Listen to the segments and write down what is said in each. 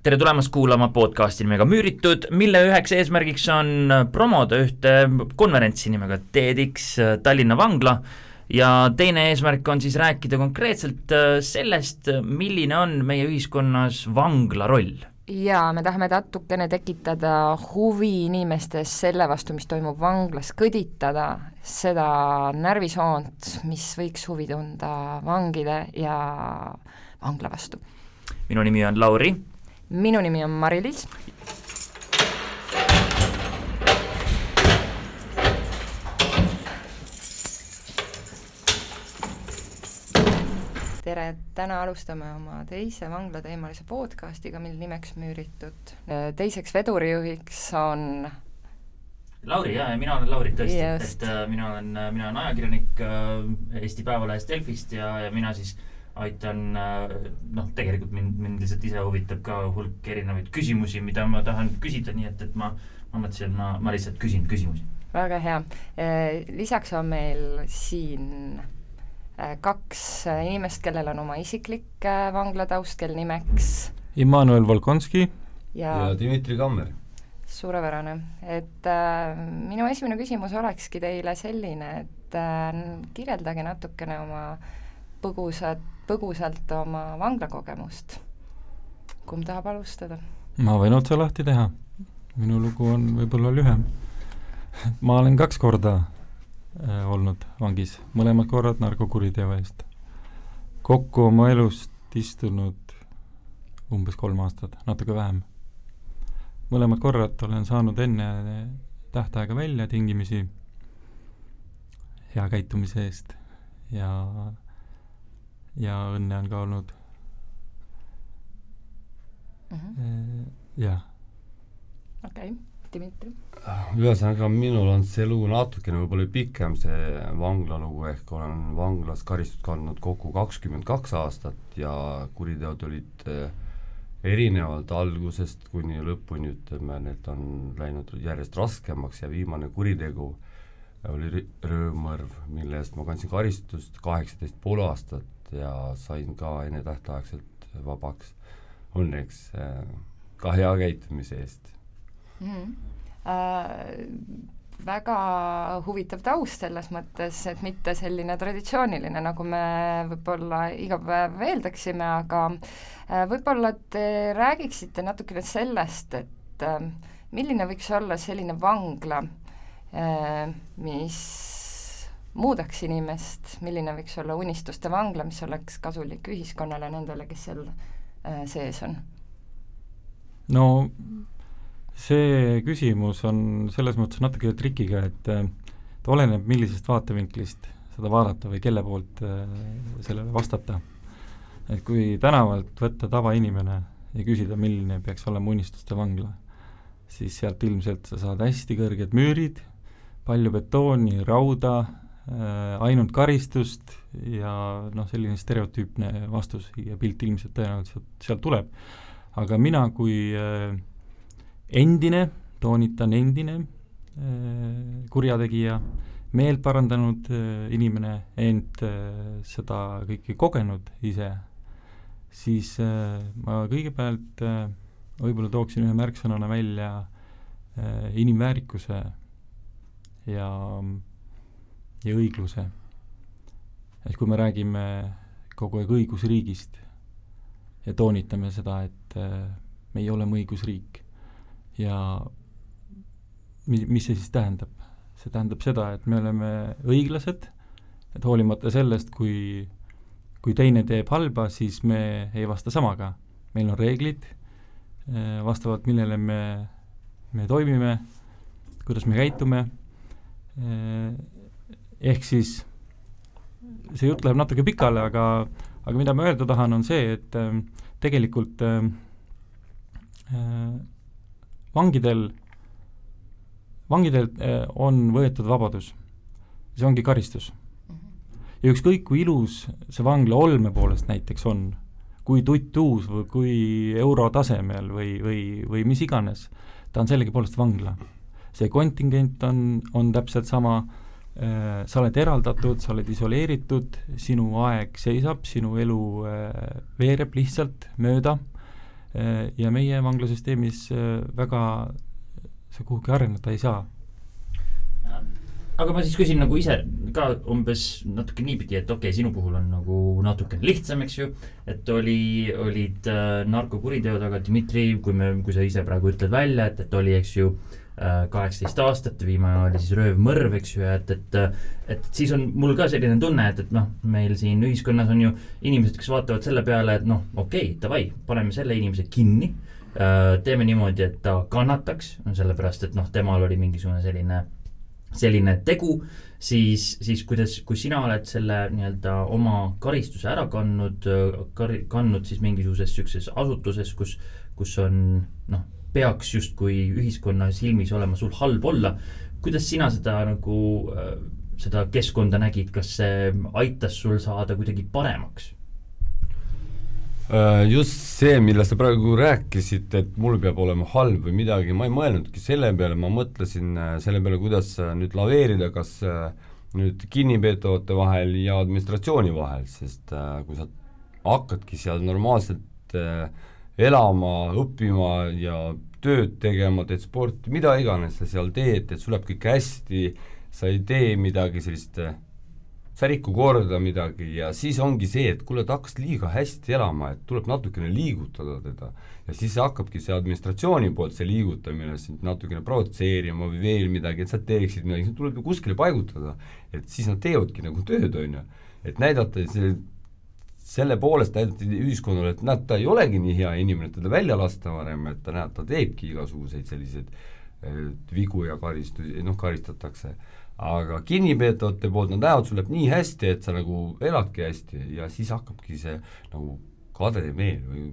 tere tulemast kuulama podcasti nimega Müüritud, mille üheks eesmärgiks on promoda ühte konverentsi nimega TEDx Tallinna Vangla ja teine eesmärk on siis rääkida konkreetselt sellest, milline on meie ühiskonnas vangla roll. Ja me tahame natukene tekitada huvi inimestes selle vastu, mis toimub vanglas, kõditada seda närvisoont, mis võiks huvi tunda vangide ja vangla vastu. Minu nimi on Lauri. Minu nimi on Mari-Liis. Tere, täna alustame oma teise vanglateemalise podcastiga, mil nimeks Müüritud. Teiseks vedurijuhiks on Lauri, ja mina olen Lauri tõesti, et mina olen ajakirjanik Eesti Päevalehest Delfist ja mina siis aitan, tegelikult mind lihtsalt ise huvitab ka hulk erinevaid küsimusi, mida ma tahan küsida, nii et ma mõtlesin, et ma lihtsalt küsin küsimusi. Väga hea. Lisaks on meil siin kaks inimest, kellel on oma isiklik vanglataust, kel nimeks Immanuel Volkonski ja Dmitri Kammer. Suurepärane. Et minu esimene küsimus olekski teile selline, et kirjeldage natukene oma põgusalt oma vanglakogemust. Kumb tahab alustada? Ma võin otsa lahti teha. Minu lugu on võib-olla lühem. Ma olen 2 korda olnud vangis, mõlemad korrad narkokuriteo eest. Kokku oma elust istunud umbes 3 aastat, natuke vähem. Mõlemad korrad olen saanud enne tähtaega välja tingimisi hea käitumise eest ja õnne on ka olnud. Jah. Okei, Dmitri. Ühesõnaga, minul on see lugu natukene võib-olla pikem, see vanglalugu, ehk olen vanglas karistust kandnud kokku 22 aastat ja kuriteod olid erinevalt algusest kuni lõpuni, ütleme, need on läinud järjest raskemaks ja viimane kuritegu oli röövmõrv, mille eest ma kandsin karistust 18,5 aastat ja sain ka enne tähtaegselt vabaks. Õnneks ka hea käitumise eest. Väga huvitav taust selles mõttes, et mitte selline traditsiooniline, nagu me võib-olla iga päev eeldaksime, aga võib-olla te räägiksite natukene sellest, et milline võiks olla selline vangla, mis muudaks inimest, milline võiks olla unistuste vangla, mis oleks kasulik ühiskonnale nendele, kes seal sees on? No see küsimus on selles mõttes natuke trikiga, et oleneb millisest vaatevinklist seda vaadata või kelle poolt sellele vastata. Et kui tänavalt võtta tavainimene ja küsida, milline peaks olema unistuste vangla, siis sealt ilmselt sa saad hästi kõrged müürid, palju betooni, rauda, ainult karistust ja selline stereotüüpne vastus ja pilt ilmselt tõenäoliselt sealt tuleb. Aga mina kui endine, toonitan endine kurjategija, meelt parandanud inimene, ent seda kõike kogenud ise, siis ma kõigepealt võib-olla tooksin ühe märksõnana välja inimväärikuse ja õigluse. Et kui me räägime kogu aeg õigusriigist ja toonitame seda, et me ei ole õigusriik ja mis see siis tähendab? See tähendab seda, et me oleme õiglased, et hoolimata sellest, kui teine teeb halba, siis me ei vasta samaga. Meil on reeglid, vastavalt millele me toimime, kuidas me käitume. Ehk siis see jutt läheb natuke pikale, aga mida ma öelda tahan, on see, et tegelikult vangidelt on võetud vabadus. See ongi karistus. Ja ükskõik kui ilus see vangla olme poolest näiteks on, kui tuttuus või kui eurotasemel või mis iganes, ta on sellegi poolest vangla. See kontingent on täpselt sama, sa oled eraldatud, sa oled isoleeritud, sinu aeg seisab, sinu elu veereb lihtsalt mööda, ja meie vanglasüsteemis väga see kuhugi areneda ei saa. Aga ma siis küsin nagu ise ka umbes natuke niipidi, et okei, sinu puhul on nagu natuke lihtsam, eks ju, et olid narkokuriteod, aga Dmitri, kui sa ise praegu ütled välja, et oli, eks ju, 18 aastat, viimane oli siis röövmõrv, eks ju, et siis on mul ka selline tunne, et noh, meil siin ühiskonnas on ju inimesed, kes vaatavad selle peale, et noh, okei, davai, paneme selle inimese kinni, teeme niimoodi, et ta kannataks, sellepärast, et noh, temal oli mingisugune selline tegu, siis kui sina oled selle nii-öelda oma karistuse ära kandnud siis mingisuguses sükses asutuses, kus on, noh, peaks justkui ühiskonna silmis olema sul halb olla, kuidas sina seda nagu, seda keskkonda nägid, kas see aitas sul saada kuidagi paremaks? Just see, millest sa praegu rääkisid, et mul peab olema halb või midagi, ma ei mõelnudki selle peale, ma mõtlesin selle peale, kuidas nüüd laveerida, kas nüüd kinnipeetavate vahel ja administratsiooni vahel, sest kui sa hakkadki seal normaalselt elama, õppima ja tööd tegema, teed sporti, mida iganes sa seal teed, et sul läheb kõik hästi, sa ei tee midagi sellist, sa riku korda midagi ja siis ongi see, et kuule, ta hakkas liiga hästi elama, et tuleb natukene liigutada teda ja siis hakkabki see administratsiooni poolt see liigutamine sind natukene provotseerima või veel midagi, et sa teeksid midagi, see tuleb ju kuskile paigutada, et siis nad teevadki nagu tööd, on ju, et näidata selle poolest näidati ühiskonnale, et näed, ta ei olegi nii hea inimene, et teda välja lasta varem, et ta näeb, ta teebki igasuguseid selliseid vigu ja karistatakse. Aga kinnipeetavate poolt nad näevad, sul läheb nii hästi, et sa nagu eladki hästi ja siis hakkabki see nagu kadede meel või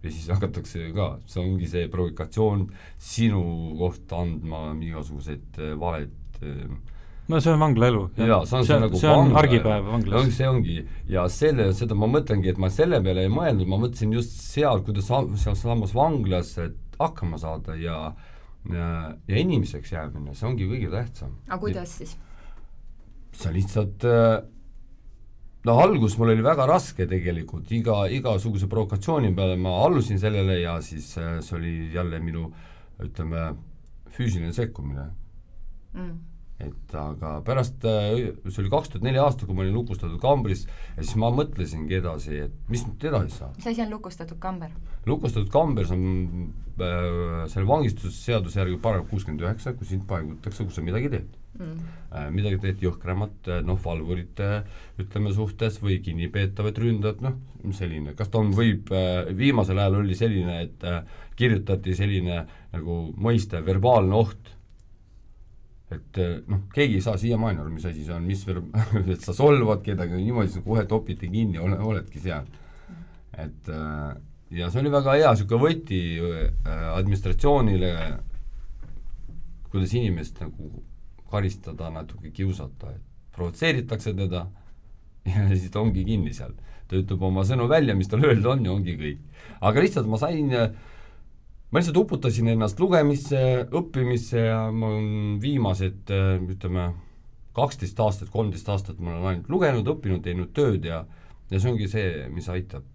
ja siis hakatakse ka, see ongi see provokatsioon sinu kohta andma igasuguseid valed. No see on vanglaelu. Jaa, see on argipäev vanglas. See ongi, ja seda ma mõtlengi, et ma selle peale ei mõelnud, ma mõtlesin just seal, kuidas seal samas vanglas hakkama saada ja inimeseks jäämine, see ongi kõige tähtsam. Aga kuidas siis? See lihtsalt, algus mul oli väga raske tegelikult, igasuguse provokatsiooni peale ma allusin sellele ja siis see oli jälle minu, ütleme, füüsiline sekkumine. Et aga pärast, see oli 2004 aasta, kui ma olin lukustatud kambris ja siis ma mõtlesingi edasi, et mis nüüd edasi saab. See asi on lukustatud kamber? Lukustatud kamber on selle vangistusseaduse järgi paragrahv 69, kui sind paigutakse, kus sa midagi teed. Midagi teed jõhkramat, valvurite, ütleme, suhtes või kinnipeetavad ründad, selline. Kas ta võib, viimasel ajal oli selline, et kirjutati selline nagu mõiste verbaalne oht, et keegi ei saa siiamaani aru, mis asi see on, et sa solvad kedagi, niimoodi sa kohe topiti kinni, oledki seal. Et ja see oli väga hea siuke võti administratsioonile, kuidas inimest nagu karistada, natuke kiusata, et provotseeritakse teda ja siis ta ongi kinni seal. Ta ütleb oma sõnu välja, mis tal öelda on ja ongi kõik. Aga lihtsalt ma lihtsalt uputasin ennast lugemisse, õppimisse ja ma olen viimased, ütleme, 12 aastat, 13 aastat ma olen ainult lugenud, õppinud, teinud tööd ja see ongi see, mis aitab.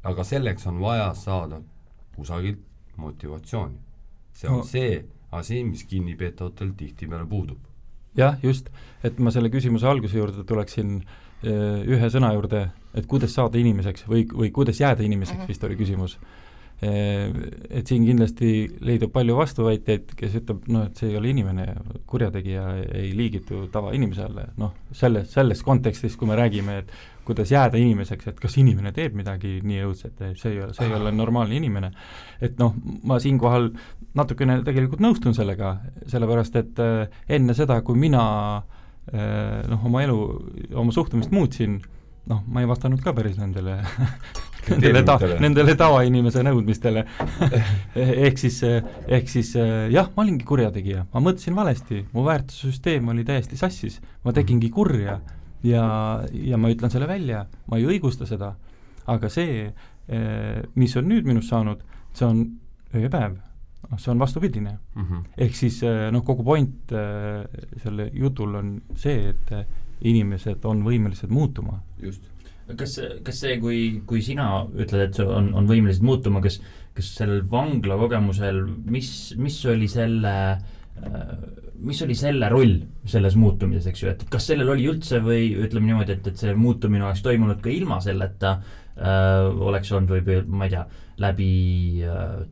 Aga selleks on vaja saada kusagilt motivatsiooni. See on see asi, mis kinnipeetavatel tihtipeale puudub. Jah, just, et ma selle küsimuse alguse juurde tuleksin ühe sõna juurde, et kuidas saada inimeseks või kuidas jääda inimeseks, vist oli küsimus. Et siin kindlasti leidub palju vastuväiteid, kes ütleb, et see ei ole inimene, kurjategija ei liigitu tavainimesele, selles kontekstis, kui me räägime, et kuidas jääda inimeseks, et kas inimene teeb midagi nii õudset, see ei ole normaalne inimene. Et ma siinkohal natukene tegelikult nõustun sellega, sellepärast, et enne seda, kui mina oma elu, oma suhtumist muutsin, ma ei vastanud ka päris nendele tavainimese nõudmistele. ehk siis jah, ma olingi kurjategija, ma mõtlesin valesti, mu väärtussüsteem oli täiesti sassis, ma tegingi kurja ja ma ütlen selle välja, ma ei õigusta seda, aga see, mis on nüüd minust saanud, see on ööpäev, see on vastupidine. Ehk siis kogu point selle jutul on see, et inimesed on võimelised muutuma. Just. kas see, kui sina ütled, et see on võimelised muutuma, kas sellel vangla kogemusel, mis oli selle roll selles muutumises, eks ju, et kas sellel oli üldse või ütleme niimoodi, et see muutumine oleks toimunud ka ilma selleta, oleks olnud või ma ei tea, läbi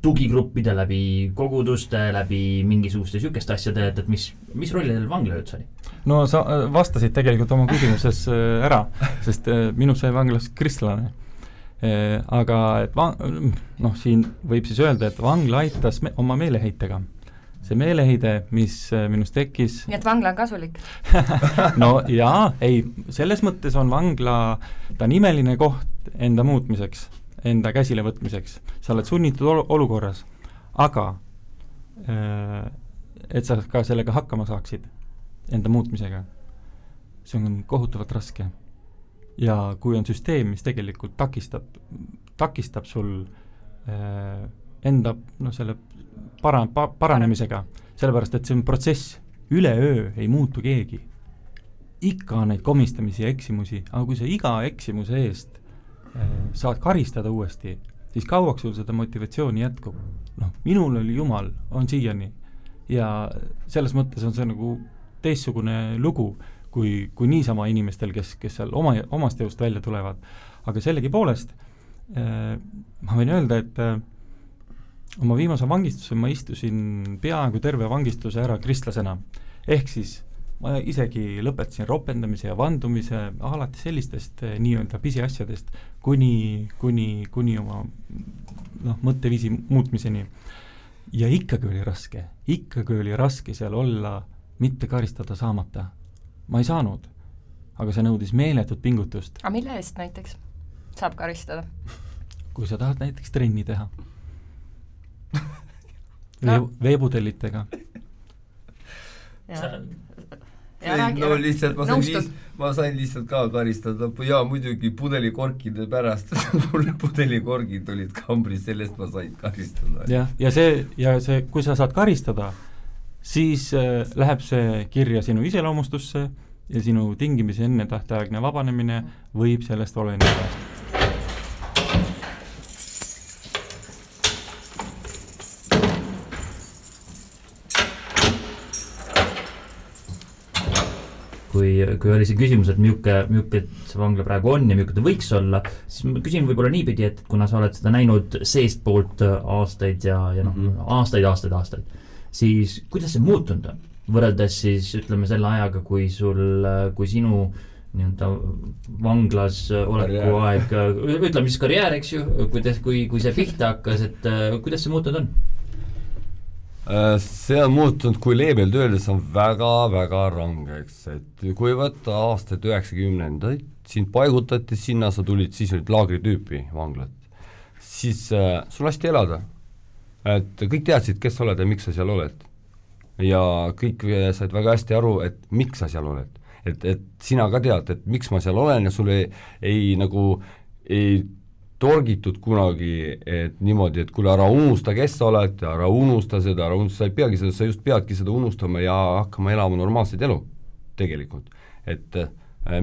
tugigruppide, läbi koguduste, läbi mingisuguste sükeste asjade, et mis rolli teil vangla üldse oli? No sa vastasid tegelikult oma küsimuses ära, sest minu sai vanglas kristlane. Aga et siin võib siis öelda, et vangla aitas oma meeleheitega. See meeleheide, mis minus tekkis... Nii et vangla on kasulik? No jaa, ei, selles mõttes on vangla, ta on imeline koht enda muutmiseks, enda käsile võtmiseks. Sa oled sunnitud olukorras, aga et sa ka sellega hakkama saaksid, enda muutmisega, see on kohutavalt raske. Ja kui on süsteem, mis tegelikult takistab sul enda selle paranemisega, sellepärast, et see on protsess, üleöö ei muutu keegi. Ikka on neid komistamisi ja eksimusi, aga kui sa iga eksimuse eest saad karistada uuesti, siis kauaks sul seda motivatsiooni jätkub. Minul oli Jumal, on siiani. Ja selles mõttes on see nagu teistsugune lugu, kui niisama inimestel, kes seal omast jõust välja tulevad. Aga sellegipoolest ma võin öelda, et oma viimase vangistuse ma istusin peaaegu terve vangistuse ära kristlasena. Ehk siis ma isegi lõpetasin ropendamise ja vandumise alati sellistest nii-öelda pisiasjadest kuni oma mõtteviisi muutmiseni. Ja ikkagi oli raske seal olla, mitte karistada saamata. Ma ei saanud, aga see nõudis meeletut pingutust. Aga mille eest näiteks saab karistada? Kui sa tahad näiteks trenni teha. Veebudellitega. No lihtsalt ma sain lihtsalt ka karistada ja muidugi pudelikorkide pärast pudelikorgid olid kambris, sellest ma sain karistada. Ja see, kui sa saad karistada, siis läheb see kirja sinu iseloomustusse ja sinu tingimisi enne tähtaegne vabanemine võib sellest oleneda. Kui oli see küsimus, et milline see vangla praegu on ja milline ta võiks olla, siis ma küsin võib-olla niipidi, et kuna sa oled seda näinud seest poolt aastaid ja aastaid, siis kuidas see muutunud on? Võrreldes siis ütleme selle ajaga, kui sinu nii-öelda vanglas oleku aeg, ütleme siis karjäär, eks ju, kui see pihta hakkas, et kuidas see muutunud on? See on muutunud, kui leebelt öeldes on väga-väga rangeks, et kui võtta aastaid 90-ndaid, sind paigutati sinna, sa tulid, siis olid laagritüüpi vanglat, siis sul lasti elada, et kõik teadsid, kes sa oled ja miks sa seal oled ja kõik said väga hästi aru, et miks sa seal oled, et sina ka tead, et miks ma seal olen ja sul ei torgitud kunagi, et niimoodi, et kuule, ära unusta, kes sa oled, ära unusta seda, sa ei peagi seda, sa just peadki seda unustama ja hakkama elama normaalset elu tegelikult. Et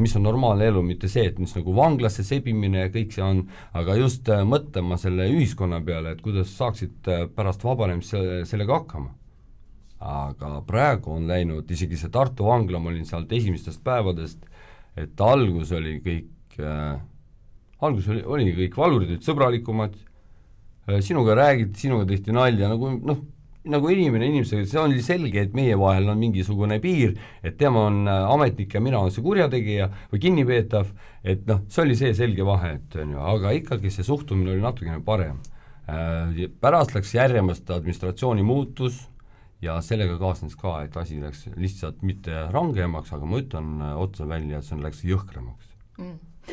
mis on normaalne elu, mitte see, et mis nagu vanglasse sebimine ja kõik see on, aga just mõtlema selle ühiskonna peale, et kuidas saaksid pärast vabanemist sellega hakkama. Aga praegu on läinud, isegi see Tartu vangla, ma olin sealt esimestest päevadest, et algus oli kõik valurid, olid sõbralikumad, sinuga räägiti, sinuga tehti nalja, nagu inimesega, see oli selge, et meie vahel on mingisugune piir, et tema on ametnik ja mina on see kurjategija või kinnipeetav, et see oli see selge vahe, aga ikkagi see suhtumine oli natukene parem. Pärast läks järjemast administratsiooni muutus ja sellega kaasnes ka, et asi läks lihtsalt mitte rangemaks, aga ma ütlen otsa välja, et see läks jõhkramaks.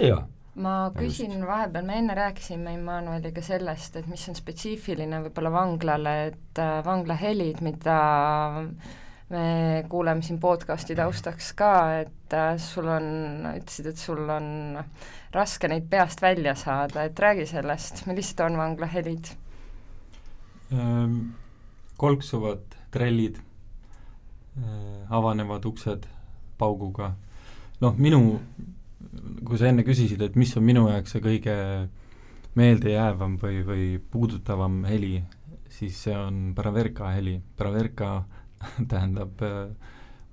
Jaa. Ma küsin vahepeal, me enne rääkisime Immanueliga sellest, et mis on spetsiifiline võib-olla vanglale, et vanglahelid, mida me kuuleme siin podcasti taustaks ka, et ütlesid, et sul on raske neid peast välja saada, et räägi sellest, millised on vanglahelid? Kolksuvad trellid, avanevad uksed pauguga. Minu kui sa enne küsisid, et mis on minu jaoks see kõige meeldejäävam või puudutavam heli, siis see on Braverka heli. Braverka tähendab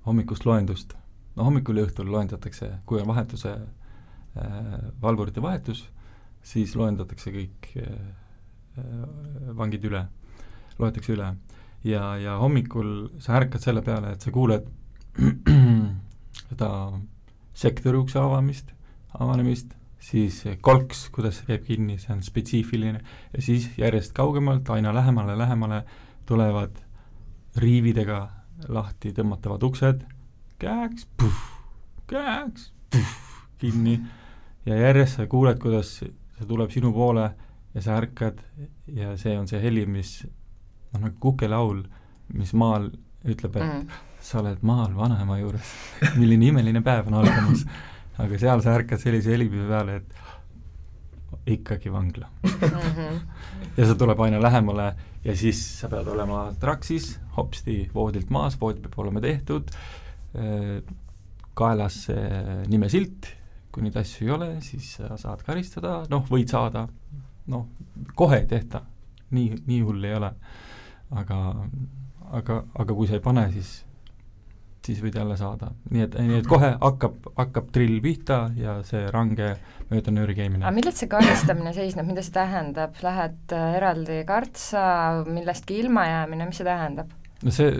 hommikust loendust. No hommikul ja õhtul loendatakse, kui on vahetuse, valvurite vahetus, siis loendatakse kõik vangid üle, loetakse üle. Ja hommikul sa ärkad selle peale, et sa kuuled seda sektori ukse avanemist, siis kolks, kuidas see käib kinni, see on spetsiifiline, ja siis järjest kaugemalt, aina lähemale tulevad riividega lahti tõmmatavad uksed, käeks, kinni, ja järjest sa kuuled, kuidas see tuleb sinu poole ja sa ärkad ja see on see heli, mis nagu kukelaul, mis maal ütleb, et sa oled maal vanaema juures, milline imeline päev on algamas, aga seal sa ärkad sellise helipive peale, et ikkagi vangla. Ja see tuleb aina lähemale ja siis sa pead olema traksis, hopsti voodilt maas, vood peab olema tehtud, kaelas nimesilt, kui neid asju ei ole, siis sa saad karistada, võid saada, kohe ei tehta, nii hull ei ole, aga kui sa ei pane, siis võid jälle saada. Nii et kohe hakkab drill pihta ja see range mööda nööri käimine. Aga millest see karistamine seisneb, mida see tähendab? Lähed eraldi kartsa, millestki ilma jäämine, mis see tähendab? No see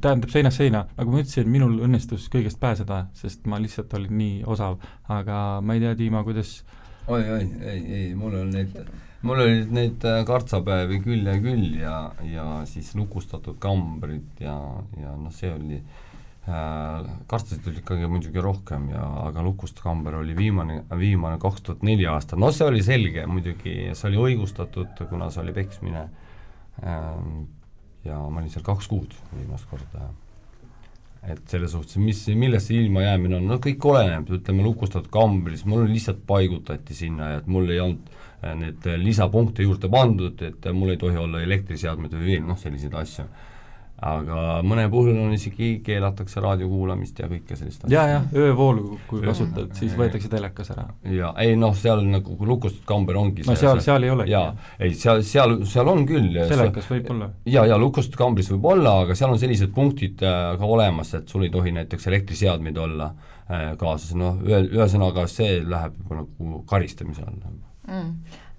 tähendab seinast seina, nagu ma ütlesin, minul õnnestus kõigest pääseda, sest ma lihtsalt olin nii osav, aga ma ei tea, Tiima, kuidas ei, mul olid neid kartsapäevi küll ja siis lukustatud kambrid ja see oli kartsasid oli ikkagi muidugi rohkem aga lukustamber oli viimane 2004 aasta, see oli selge muidugi, see oli õigustatud, kuna see oli peksmine ja ma olin seal 2 kuud viimast korda. Et selles suhtes, millest see ilma jäämine on, kõik oleneb, ütleme lukustatud kambris, mul lihtsalt paigutati sinna, et mul ei olnud need lisapunkte juurde pandud, et mul ei tohi olla elektriseadmed või veel, selliseid asju. Aga mõne puhul on isegi keelatakse raadiokuulamist ja kõike sellist asja. Ja, öövoolu, kui kasutad, siis võetakse telekas ära. Ja, seal nagu lukustatud kamber ongi see. Seal ei ole. Ja, seal on küll. Telekas võib olla. Ja, lukustatud kambris võib olla, aga seal on sellised punktid ka olemas, et sul ei tohi näiteks elektriseadmeid olla kaasas. Ühesõnaga see läheb juba nagu karistamise all.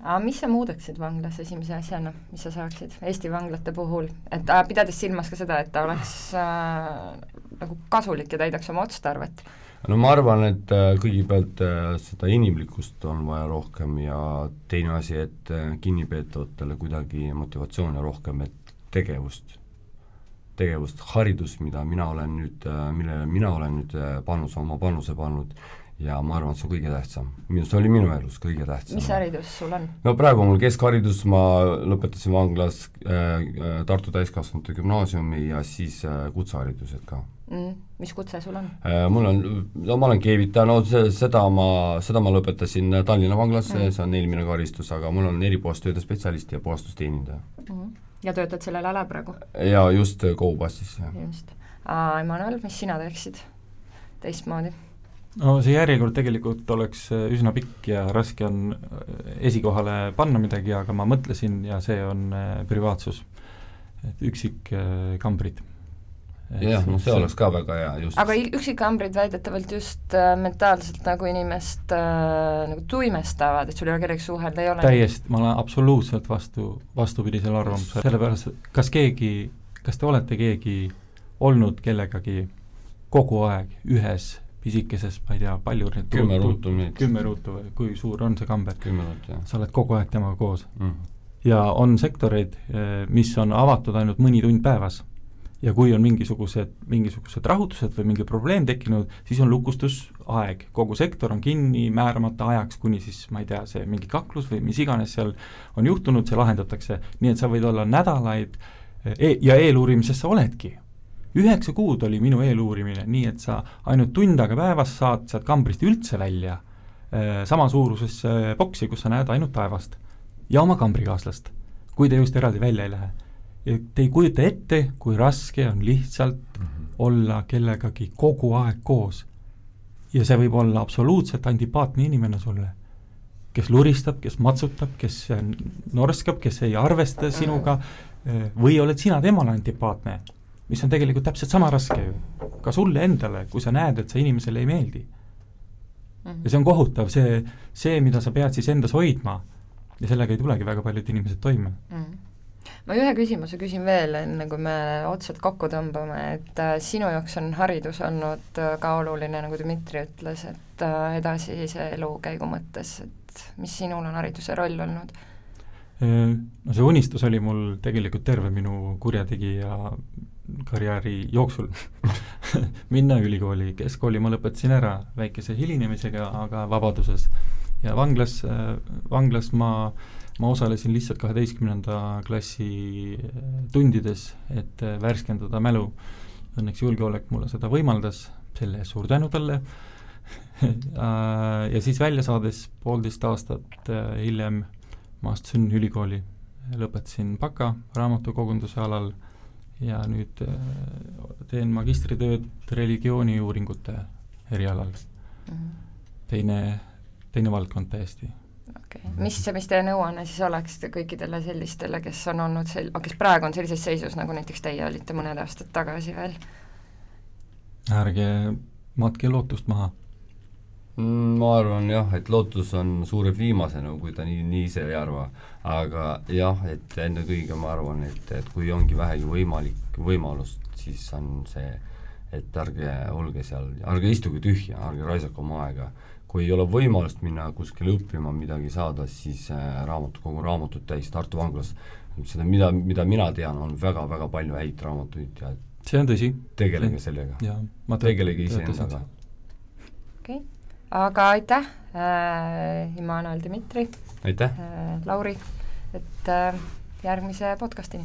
Aga mis sa muudaksid vanglas esimese asjana, mis sa saaksid Eesti vanglate puhul, et pidades silmas ka seda, et ta oleks nagu kasulik ja täidaks oma otstarvet? No ma arvan, et kõigepealt seda inimlikkust on vaja rohkem ja teine asi, et kinnipeetavatele kuidagi motivatsiooni rohkem, et tegevust, haridus, millele mina olen nüüd oma panuse pannud, ja ma arvan, et see on kõige tähtsam. See oli minu elus kõige tähtsam. Mis haridus sul on? No praegu mul keskharidus, ma lõpetasin vanglas Tartu täiskasvanute gümnaasiumi ja siis kutseharidused ka. Mis kutse sul on? Ma olen keevitaja, seda ma lõpetasin Tallinna vanglas, see on eelmine karistus, aga mul on eripuhastööde spetsialist ja puhastusteenindaja. Ja töötad sellel ala praegu? Ja just Koubassis. Just. Emmanuel, mis sina teeksid teistmoodi? No see järjekord tegelikult oleks üsna pikk ja raske on esikohale panna midagi, aga ma mõtlesin ja see on privaatsus, et üksikkambrid. Jah, see oleks ka väga hea just. Aga üksikkambrid väidetavalt just mentaalselt nagu inimest nagu tuimestavad, et sul ei ole kellegi suhelda, ei ole? Täiesti, ma olen absoluutselt vastupidisel arvamusel. Sellepärast, kas te olete keegi olnud kellegagi kogu aeg ühes pisikeses, ma ei tea, palju 10 ruutu või kui suur on see kamber? 10 ruutu, jah. Sa oled kogu aeg temaga koos. Ja on sektoreid, mis on avatud ainult mõni tund päevas. Ja kui on mingisugused rahutused või mingi probleem tekkinud, siis on lukustusaeg. Kogu sektor on kinni määramata ajaks, kuni siis, ma ei tea, see mingi kaklus või mis iganes seal on juhtunud, see lahendatakse. Nii et sa võid olla nädalaid ja eeluurimisest sa oledki. 9 kuud oli minu eeluurimine, nii et sa ainult tund aega päevas saad sealt kambrist üldse välja sama suurusesse boksi, kus sa näed ainult taevast ja oma kambrikaaslast, kui te just eraldi välja ei lähe. Ja te ei kujuta ette, kui raske on lihtsalt olla kellegagi kogu aeg koos. ja see võib olla absoluutselt antipaatne inimene sulle, kes luristab, kes matsutab, kes norskab, kes ei arvesta sinuga, või oled sina temale antipaatne, mis on tegelikult täpselt sama raske ju, ka sulle endale, kui sa näed, et see inimesele ei meeldi. Ja see on kohutav, see, mida sa pead siis endas hoidma, ja sellega ei tulegi väga paljud inimesed toime. Ma ühe küsimuse küsin veel, enne kui me otsad kokku tõmbame, et sinu jaoks on haridus olnud ka oluline, nagu Dmitri ütles, et edasise elukäigu mõttes, et mis sinul on hariduse roll olnud? No see unistus oli mul tegelikult terve minu kurjategija karjääri jooksul minna ülikooli, keskkooli ma lõpetasin ära väikese hilinemisega, aga vabaduses. Ja vanglas ma osalesin lihtsalt 12. klassi tundides, et värskendada mälu. Õnneks julgeolek mulle seda võimaldas, selle suur tänu talle. Ja siis välja saades 1,5 aastat hiljem ma astusin ülikooli, lõpetasin baka raamatukogunduse alal ja nüüd teen magistritööd religiooniuuringute erialal. Teine valdkond täiesti. Okay. Mis teie nõuanne siis oleks kõikidele sellistele, kes on olnud kes praegu on sellises seisus, nagu näiteks teie olite mõned aastad tagasi veel? Ärge matke lootust maha. Ma arvan jah, et lootus on suureb viimasena, kui ta nii ise ei arva, aga jah, et enne kõige ma arvan, et kui ongi vähegi võimalust, siis on see, et ärge olge seal, ärge istuge tühja, ärge raisake oma aega. Kui ei ole võimalust minna kuskile õppima midagi saada, siis kogu raamatut täis Tartu vanglas. Seda, mida mina tean, on väga-väga palju häid raamatuid ja see on tõsi. Tegelege sellega. Tegelege ise endaga. Okay. Aga aitäh, Immanuel, Dmitri. Aitäh. Lauri, et järgmise podcastini.